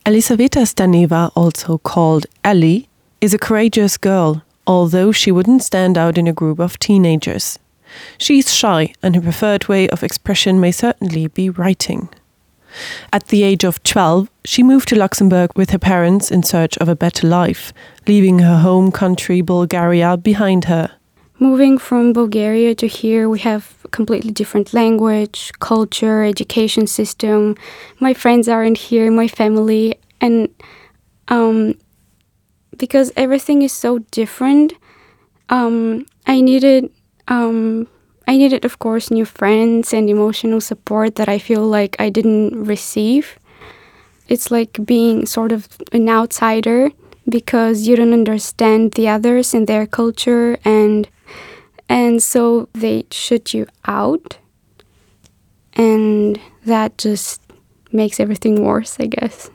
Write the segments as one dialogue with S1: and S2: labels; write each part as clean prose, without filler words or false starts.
S1: Elisaveta Staneva, also called Ellie, is a courageous girl, although she wouldn't stand out in a group of teenagers. She's shy and her preferred way of expression may certainly be writing. At the age of 12, she moved to Luxembourg with her parents in search of a better life, leaving her home country Bulgaria behind her.
S2: Moving from Bulgaria to here, we have completely different language, culture, education system. My friends aren't here, my family and um, because everything is so different, um, I needed um, I needed of course new friends and emotional support that I feel like I didn't receive. It's like being sort of an outsider because you don't understand the others and their culture and and so they shut you out and that just makes everything worse, I guess.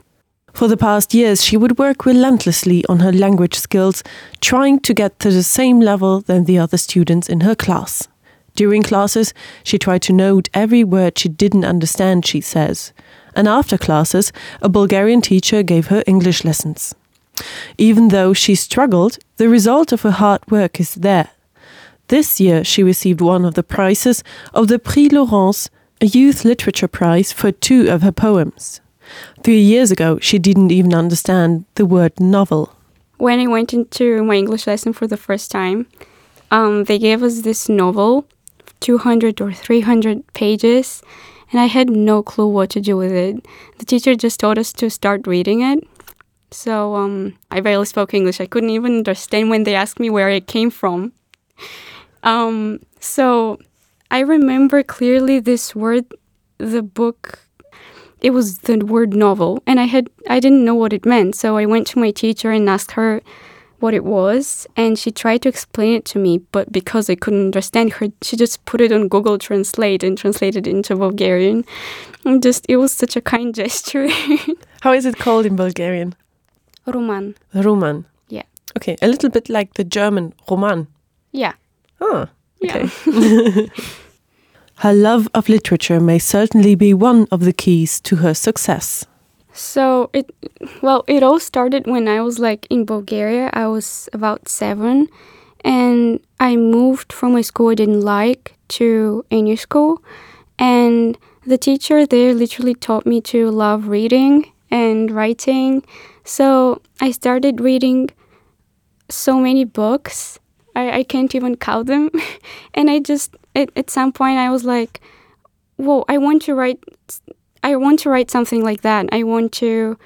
S1: For the past years, she would work relentlessly on her language skills, trying to get to the same level than the other students in her class. During classes, she tried to note every word she didn't understand, she says. And after classes, a Bulgarian teacher gave her English lessons. Even though she struggled, the result of her hard work is there. This year she received one of the prizes of the Prix Laurence, a youth literature prize for two of her poems. Three years ago, she didn't even understand the word novel.
S2: When I went into my English lesson for the first time, um, they gave us this novel, 200 or 300 pages, and I had no clue what to do with it. The teacher just told us to start reading it. So um, I barely spoke English. I couldn't even understand when they asked me where it came from. Um, so I remember clearly this word, the book it was the word novel and I had I didn't know what it meant so I went to my teacher and asked her what it was and she tried to explain it to me but because I couldn't understand her she just put it on Google translate and translated it into Bulgarian and just it was such a kind gesture
S1: how is it called in Bulgarian
S2: Roman
S1: Roman
S2: yeah
S1: okay a little bit like the German Roman
S2: yeah
S1: ah okay yeah. Her love of literature may certainly be one of the keys to her success.
S2: So it well it all started when I was like in Bulgaria. I was about 7 and I moved from a school I didn't like to a new school and the teacher there literally taught me to love reading and writing. So I started reading so many books. I, I can't even count them. and I just at, at some point I was like, "Whoa, I want to write I want to write something like that. I want to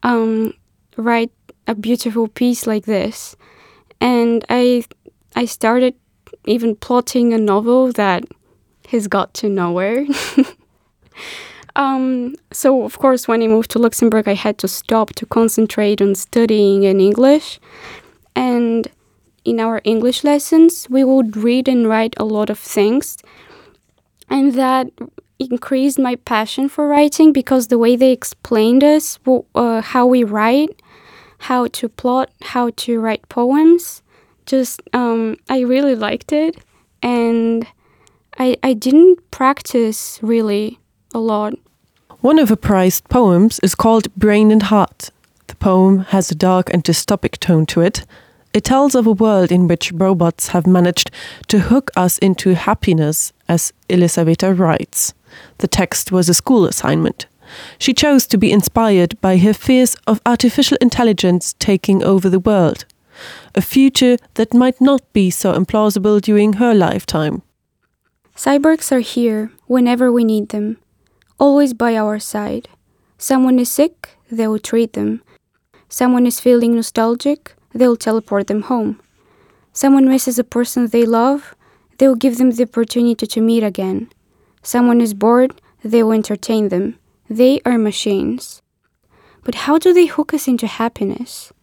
S2: um, write a beautiful piece like this." And I I started even plotting a novel that has got to nowhere. um, so of course, when I moved to Luxembourg, I had to stop to concentrate on studying in English. And in our English lessons, we would read and write a lot of things. And that increased my passion for writing because the way they explained us uh, how we write, how to plot, how to write poems, just um, I really liked it. And I, I didn't practice really a lot.
S1: One of her prized poems is called Brain and Heart. The poem has a dark and dystopic tone to it. It tells of a world in which robots have managed to hook us into happiness, as Elisaveta writes. The text was a school assignment. She chose to be inspired by her fears of artificial intelligence taking over the world. A future that might not be so implausible during her lifetime.
S2: Cyborgs are here whenever we need them, always by our side. Someone is sick, they will treat them. Someone is feeling nostalgic, they'll teleport them home. Someone misses a person they love, they'll give them the opportunity to meet again. Someone is bored, they will entertain them. They are machines. But how do they hook us into happiness?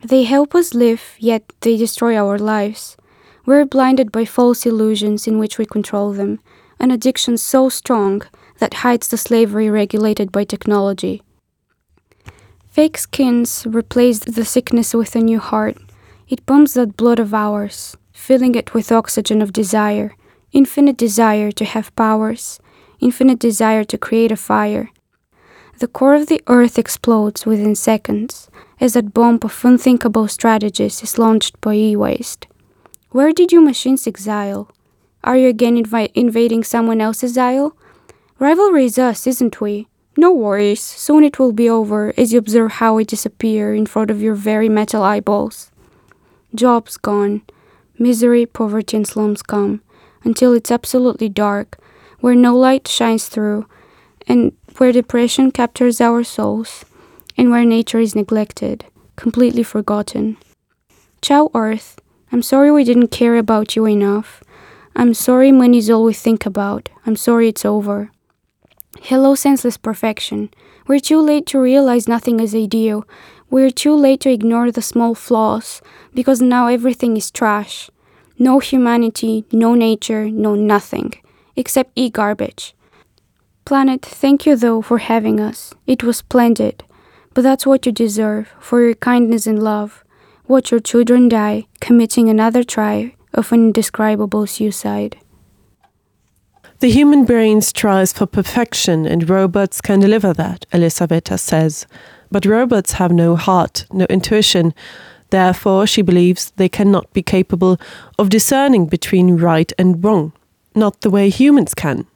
S2: They help us live, yet they destroy our lives. We're blinded by false illusions in which we control them, an addiction so strong that hides the slavery regulated by technology. Fake skins replace the sickness with a new heart. It pumps that blood of ours, filling it with oxygen of desire, infinite desire to have powers, infinite desire to create a fire. The core of the Earth explodes within seconds as that bomb of unthinkable strategies is launched by e-waste. Where did you machines exile? Are you again invi invading someone else's isle? Rivalry is us, isn't we? No worries, soon it will be over as you observe how we disappear in front of your very metal eyeballs. Jobs gone, misery, poverty and slums come, until it's absolutely dark, where no light shines through, and where depression captures our souls, and where nature is neglected, completely forgotten. Ciao, Earth. I'm sorry we didn't care about you enough. I'm sorry money's all we think about. I'm sorry it's over. Hello, senseless perfection. We're too late to realize nothing is ideal. We're too late to ignore the small flaws, because now everything is trash. No humanity, no nature, no nothing, except e-garbage. Planet, thank you though for having us. It was splendid. But that's what you deserve for your kindness and love. Watch your children die, committing another try of an indescribable suicide.
S1: The human brain strives for perfection and robots can deliver that, Elisaveta says. But robots have no heart, no intuition. Therefore, she believes they cannot be capable of discerning between right and wrong, not the way humans can.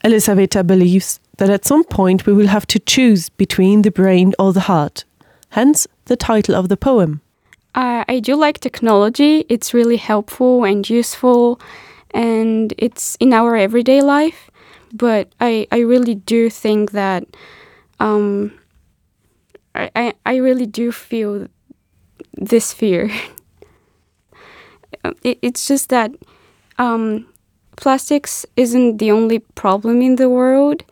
S1: Elisaveta believes that at some point we will have to choose between the brain or the heart. Hence the title of the poem.
S2: Uh, I do like technology. It's really helpful and useful and it's in our everyday life. But I, I really do think that um, I, I, I really do feel this fear. it, it's just that um, plastics isn't the only problem in the world,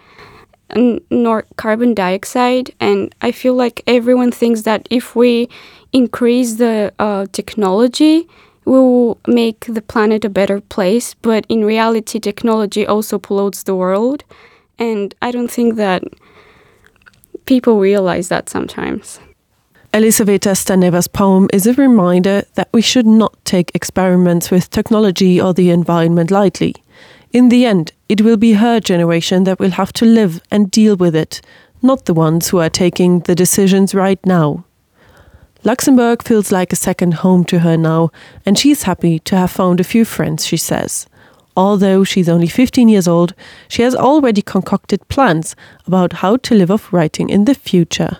S2: nor carbon dioxide. And I feel like everyone thinks that if we increase the uh, technology, we will make the planet a better place. But in reality, technology also pollutes the world. And I don't think that people realize that sometimes.
S1: Elisaveta Staneva's poem is a reminder that we should not take experiments with technology or the environment lightly. In the end, it will be her generation that will have to live and deal with it, not the ones who are taking the decisions right now. Luxembourg feels like a second home to her now, and she's happy to have found a few friends, she says. Although she's only 15 years old, she has already concocted plans about how to live off writing in the future.